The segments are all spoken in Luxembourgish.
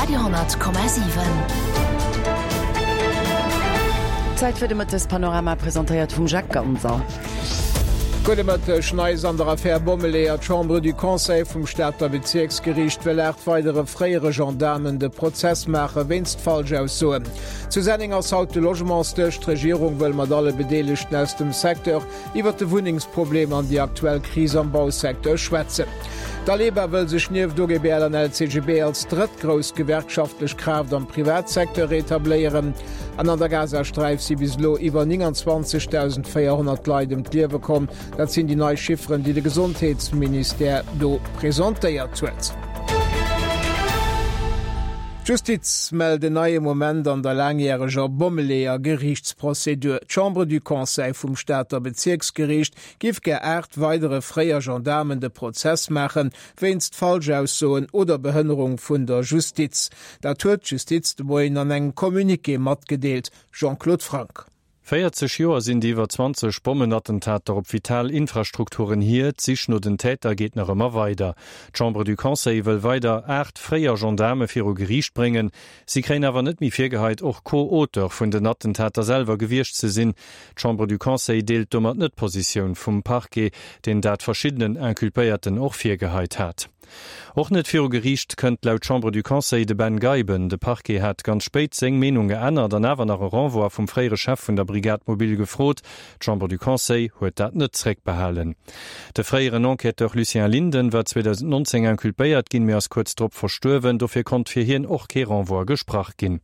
Radio 10,7. Zäit fir de Mëttespanorama, presentéiert vum Jacques Ganser. Gudde Mëtteg. Neis an der Affär Bommeleeër, D'Chambre du Conseil vum Stater Bezierksgeriicht wëll 8 weidere fréiere Gendaarmen de Prozess maache wéinst Falschaussoen. Zu Senneng ass haut de Logementsdësch. D'Regierung wëll mat alle Bedeelegten aus dem Secteur iwwer de Wunnengsproblem an déi aktuell Kris am Bausecteur schwätzen. D'Aleba wëll sech nieft OGBL an LCGB als drëtt grouss gewerkschaftlech Kraaft am Privatsecteur etabléieren. An an der Gazasträif si bis elo iwwer 29.400 Leit ëm d'Liewe komm. Dat sinn déi nei Chifferen, déi de Gesondheetsministère do presentéiert huet. D'Justiz mellt en neie Moment an der laangjäreger Bommeleeër-Geriichtsprozedur. D'Chambre du Conseil vum Stater Bezierksgeriicht giff gär 8 weidere fréier Gendaarmen de Prozess maachen, wéinst Falschaussoen oder Behënnerung vun der Justiz. Dat huet d'Justiz de Moien an engem Communiqué matgedeelt. Jean-Claude Franck. 40 Joer sinn déi iwwer 20 Bommenattentater op vital Infrastrukturen hier. D'Sich no den Täter geet nach ëmmer weider. D'Chambre du Conseil wëll weider 8 fréier Gendaarme viru Geriicht bréngen. Si kréien awer net méi virgeheit, och Co-Auteur vun den Attentater selwer gewiescht ze sinn. D'Chambre du Conseil deelt domat net d'Positioun vum Parquet, deen dat verschiddenen Inculpéierten och virgeheit hat. Och net viru Geriicht kënnt laut Chambre du Conseil de Ben Geiben. De Parquet hat ganz spéit seng Meenung geännert an awer nach e Renvoi vum fréiere Chef vun der Brigade mobile gefrot. D'Chambre du Conseil huet dat net zréckbehalen. De fréieren Enquêteur Lucien Linden war 2019 inculpéiert ginn, mee ass kuerz drop verstuerwen. Dofir konnt fir hien och kee Renvoi gesprach ginn.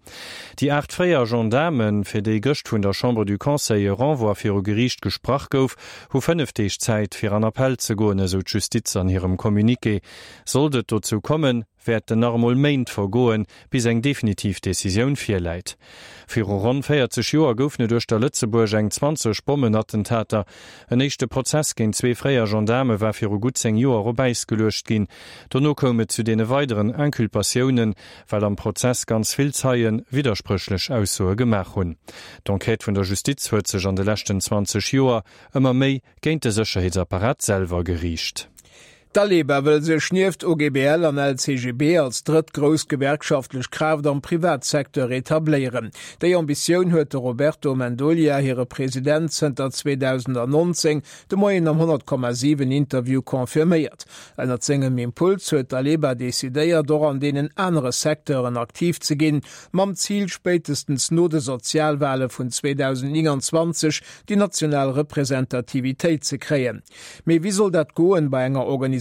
Déi 8 fréier Gendaarmen, fir déi gëscht vun der Chambre du Conseil e Renvoi viru Geriicht gesprach gouf, hu 5 Deeg Zäit, fir an Appell ze goen, esou d'Justiz an hirem Communiqué. Sollt et dozou kommen, wäerten nach emol Méint vergoen, bis eng definitiv Decisioun virläit. Viru ronn 40 Joer goufen et uechter Lëtzebuerg eng 20 Bommenattentater. En éischte Prozess géint zwee fréier Gendaarme war viru gutt 10 Joer op Äis geluecht ginn. Dono koum et zu deene weideren Inculpatiounen, well am Prozess ganz vill Zeie widderspréchlech Aussoe gemaach hunn. D'Enquête vun der Justiz huet sech an de leschten 20 Joer ëmmer méi géint de Sécherheetsapparat selwer geriicht. D'Aleba wëll sech nieft OGBL an LCGB als drëtt grouss gewerkschaftlech Kraaft am Privatsecteur etabléieren. Déi Ambitioun huet de Roberto Mendolia, hire President zënter 2019, de Moien am 100,7 Interview confirméiert. Ënnert sengem Impuls huet d'Aleba decidéiert, och an deenen anere Secteuren aktiv ze ginn, mam Zil, spéitestens no de Sozialwale vun 2029 déi national Representativitéit ze kréien. Mee wéi soll dat goen bei enger Organisatioun,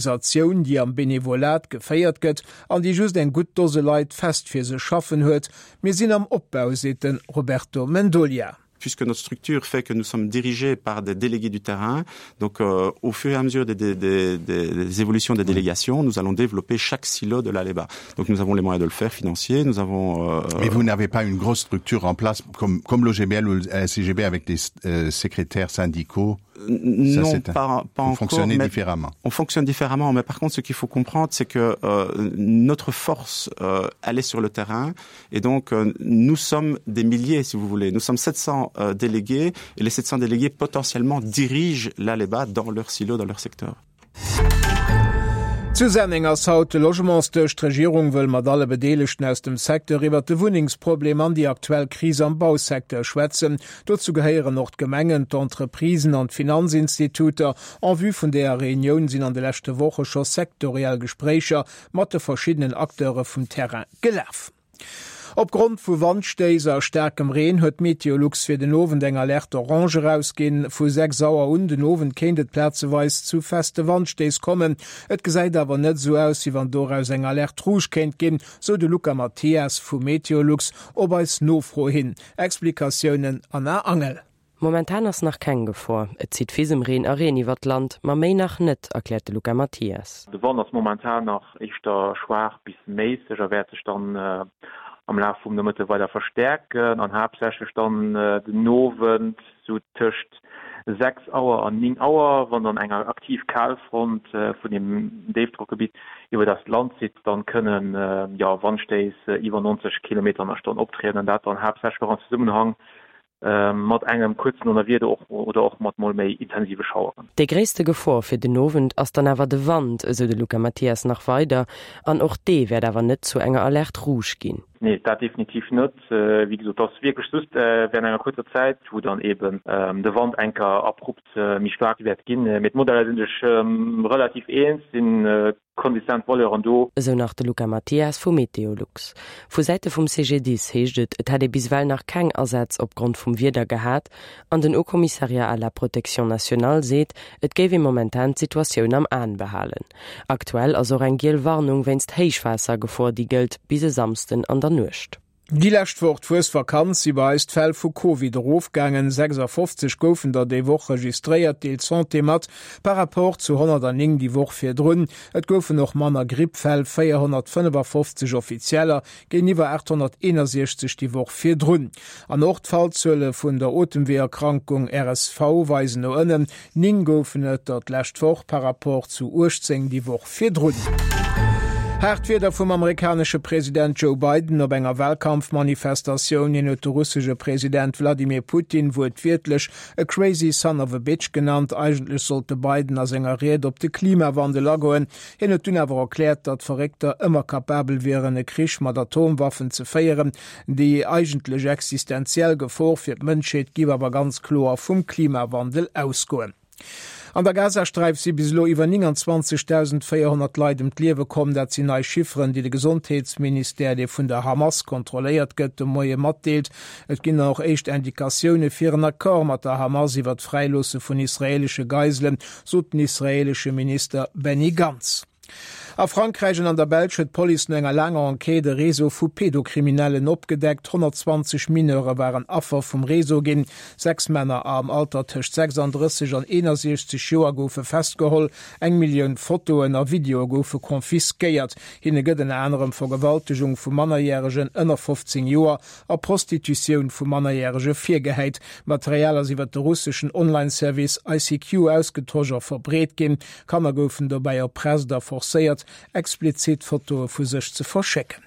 déi am Benevolat geféiert gëtt an déi just eng gutt Dose Leit fest fir sech schaffen huet? Mir sinn am Opbau, seet de Roberto Mendolia. Puisque notre structure fait que nous sommes dirigés par des délégués du terrain, donc euh, au fur et à mesure des, des, des, des évolutions des délégations, nous allons développer chaque silo de l'Aleba. Donc nous avons les moyens de le faire financier, nous avons euh, Mais vous n'avez pas une grosse structure en place comme, comme l'OGBL ou le SCGB avec des euh, secrétaires syndicaux non Ça, pas, pas encore fonctionner différemment on fonctionne différemment mais par contre ce qu'il faut comprendre c'est que euh, notre force euh, elle est sur le terrain et donc euh, nous sommes des milliers si vous voulez nous sommes 700 euh, délégués et les 700 délégués potentiellement dirigent l'Aleba dans leur silo dans leur secteur. Zu Senneng ass haut de Logementsdësch. D'Regierung wëll mat alle Bedeelegten aus dem Secteur iwwert de Wunnengsproblem an déi aktuell Kris am Bausecteur schwätzen. Dozou gehéieren och d'Gemengen, d'Entreprisen an d'Finanzinstituter. En vue vun deeër Reunioun sinn an de leschte Woche scho sektoriell Gespréicher mat de verschiddenen Acteure vum Terrain gelaf. Opgrond vu Wandstéiss a staarkem Reen huet Meteolux fir den Owend eng Alerte orange erausginn. Vu 6 Auer un den Owend kéint et plazeweis zu feste Wandstéiss kommen. Et gesäit awer net esou aus, wéi wann doraus eng Alerte rouge kéint ginn, sou de Luca Mathias vu Meteolux op eis Nofro hin. Explikatiounen Anna Angel. Momentan ass nach keng Gefor. Et zitt Fisemreen a Reen iwwert d'Land, ma méi nach net, erkläert de Luca Mathias. De Wand ass momentan nach éischter schwaach bis méisseg a wäert sech dann am Laf vum Nomëtte weider verstäerken an haaptsächlech dann den Owend sou tëscht 6 Auer an 9 Auer, wann dann eng aktiv Kalfront vun dem Déifdrockgebitt iwwert eist Land zitt, dann kënnen jo Wandstéiss iwwer 90 Kilometer an der Stonn optrieden an dat dann haaptsächlech och am Zesummenhang. Mat engem kuerzen Donnerwieder och oder och mat mol méi intensive Schaueren. Déi gréisste Gefor fir den Owend ass dann awer de Wand, esou de Luca Mathias nach weider. An och dee wäert awer net zu enger Alerte rouge ginn. Nee, dat definitiv net. Wéi gesot, et ass wierklech just während enger kuerzer Zäit, wou dann eben de Wand enker abrupt méi staark wäert ginn. Mee d'Modeller si sech relativ eens, sinn Konsistent Valeuren do. Esou nach de Luca Mathias vu Meteolux. Vu Säite vum CGDIS heescht et, et hätt ee bis ewell nach keng Asätz opgrond vum Wieder gehat an den Haut Commissariat à la protection nationale seet, et géif ee momentan d'Situatioun am Aen behalen. Aktuell ass och eng giel Warnung wéinst Héichwaassergefor, déi gëllt bis e Samsden an der Nuecht. Déi lescht Woch, d'Fuesvakanz, si bei eis d'Fäll vu Covid erofgaangen. 56 goufen der déi Woch registréiert, deelt d'Santé mat, par rapport zu 109 déi Woch virdrun. Et goufen och manner Grippfäll, 455 offizieller géintiwwer 861 déi Woch virdrun. An och d'Fallzuele vun der Otemweeërkrankung RSV weisen no ënnen, 9 goufen et der d'lescht Woch par rapport zu 18 déi Woch virdrun. Haart Wierder vum amerikanesche President Joe Biden op enger Wahlkampfmanifestatioun. Hien huet de russesche President Wladimir Putin wuertwiertlech e crazy son of a bitch genannt. Eigentlech sollt de Biden a senger Ried op de Klimawandel agoen. Hien huet dunn awer erkläert, datt Verréckter ëmmer kapabel wieren, e Krich mat Atomwaffen ze féieren. Déi eigentlech existenziell Gefor fir d'Mënschheet giff awer ganz kloer vum Klimawandel ausgoen. An der Gazasträif si bis elo iwwer 29.400 Leit ëm d'Liewe komm. Dat sinn nei Chifferen, déi de Gesondheetsministère, dee vun der Hamas kontrolléiert gëtt, de Moie matdeelt. Et ginn och éischt Indikatioune fir en Accord mat der Hamas iwwer d'Fräiloosse vun israeelesche Geiselen, sot den israeelesche Minister Benny Gantz. A Frankräich an an der Belsch huet d'Police no enger laanger Enquête e Réseau vu Pedokriminellen opgedeckt. 120 Mineure waren Affer vum Réseau ginn. 6 Männer am Alter tëscht 36 an 61 Joer goufe festgeholl. Eng Millioun Fotoen a Videoe goufe confisquéiert. Hinne gëtt ënner anerem Vergewaltegung vu Mannerjäregen ënner 15 Joer a Prostitutioun vu Mannerjärege virgehäit. D'Material ass iwwer de russeschen Online-Service ICQ ausgetosch a verbreet ginn. Kanner goufen dobäi erpresst a forcéiert, explizit Fotoe vu sech ze verschécken.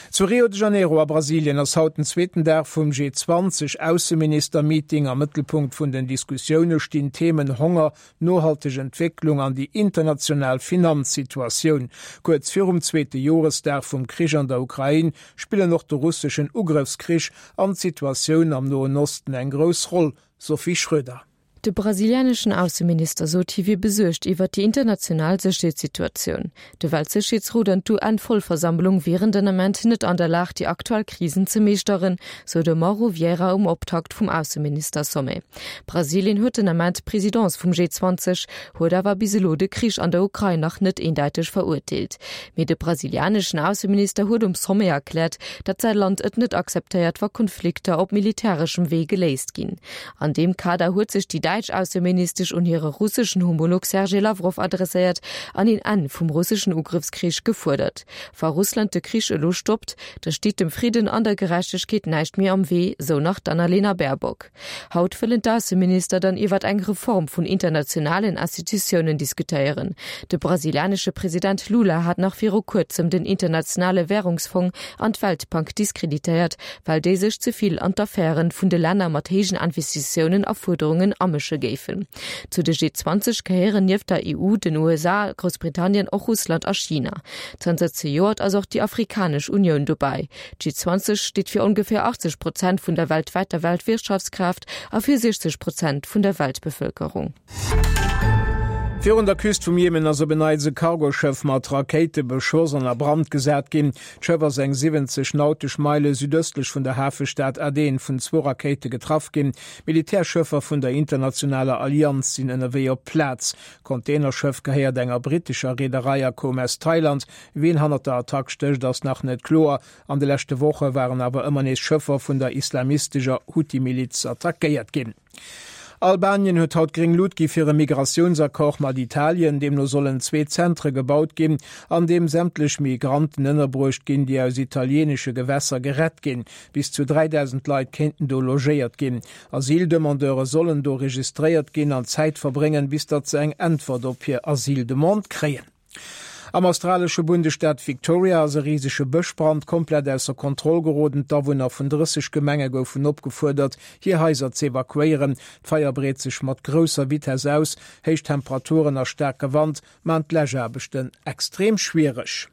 Zu Rio de Janeiro a Brasilien ass haut den zweeten Dag vum G20 Ausseminister-Meeting. Am Mëttelpunkt vun den Diskussioune stinn d'Themen Honger, nohalteg Entwécklung an déi international Finanzsituatioun. Kuerz virum zweete Joresdag vum Krich an der Ukrain spillen och de russeschen Ugrëffskrich an d'Situatioun am Noen Osten eng grouss Roll, Sophie Schröder. De brasilianeschen Ausseminister sot, hie wier besuergt iwwert déi international Sécherheetssituatioun. De Weltsécherheetsrot an d'UN-Vollversammlung wieren den Ament net an der Lag, déi aktuell Krisen ze meeschteren, sou de Mauro Vieira um Optakt vum Ausseminister-Sommet. Brasilien huet den Ament d'Presidence vum G20, huet awer bis elo de Krich an der Ukrain nach net eendeiteg verurteelt. Mee de brasilianeschen Ausseminister huet um Sommet erkläert, datt säi Land et net akzeptéiert, wa Konflikter op militäreschem Wee geléist ginn. An deem Kader huet sech déi däitsch Ausseministesch un hire russeschen Homolog Sergej Lawrow adresséiert an een Enn vum russeschen Ugrëffskrich gefuerdert. Wa Russland de Krich elo stoppt, da steet dem Fridden an der Gerechtegkeet näischt méi am Wee, sou nach d'Annalena Baerbock. Haut wëllen d'Ausseminister dann iwwert eng Reform vun internationalen Institutiounen diskutéieren. De brasilianesche President Lula hat nach viru kuerzem den Internationale Wärungsfong an d'Weltbank diskreditéiert, well déi sech ze vill an d'Affären vun de Länner mat héijen Investitiounen a Fuerderungen amësche géifen. Zu de G20 gehéieren nieft der EU, den USA, Groussbritannien och Russland a China. Zanter zejoert ass och déi Afrikanesch Unioun dobäi. D'G20 steet fir ongeféier 80 Prozent vun der weltwäiter Weltwirtschaftskraaft a fir 60 Prozent vun der Weltbevëlkerung. Virun der Küst vum Jemen ass op en Neits e Cargoschëff mat Rakéite beschoss an a Brand gesat ginn. D'Schëff ass eng 70 nautesch Meile südëstlech vun der Hafestad Aden vun zwou Rakéite getraff ginn. Militärschëffer vun der internationaler Allianz sinn ënnerwee op d'Plaz. D'Containerschëff gehéiert enger brittescher Reederei a koum aus Thailand. Wien hannert der Attack stécht, ass nach net kloer. An de leschte Woche waren awer ëmmer nees Schëffer vun der islamistescher Huthi-Miliz attackéiert ginn. Albanien huet haut gréng Lut gi fir e Migratiounsaccord mat Italien. Deemno sollen zwee Zentre gebaut ginn, an deem sämtlech Migranten ënnerbruecht ginn, déi aus italieenesche Gewässer gerett ginn. Bis zu 3.000 Leit kéinten do logéiert ginn. Asyldemandeure sollen do registréiert ginn an Zäit verbréngen, bis datt se eng Äntwert op hir Asyldemande kréien. Am australesche Bundesstaat Victoria ass e risege Bëschbrand komplett ausser Kontroll geroden. D'Awunner vun 30 Gemenge goufen opgefuerdert, hir Haiser z'evakuéieren. D'Feier breet sech mat grousser Vitess aus. Héich Temperaturen a staarke Wand maan d'Läschaarbechten extrem schwiereg.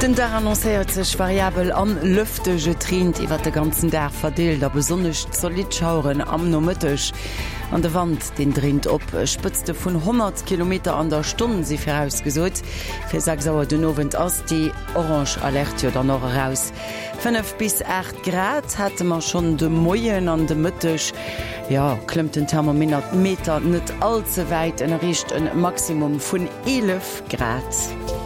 Den Dag annoncéiert sech variabel an lëfteg. Et reent iwwert de ganzen Dag verdeelt a besonnesch zolidd Schaueren am Nomëtteg. An de Wand, deen dréint op. Spëtzte vun 100 Kilometer an der Stonn si virausgesot. Fir 6 Auer den Owend ass déi orange Alerte jo dann och eraus. 5 bis 8 Grad hate mer schonn de Moien an de Mëtteg, jo, klëmmt den Thermometer net all ze wäit en erreecht e Maximum vun 11 Grad.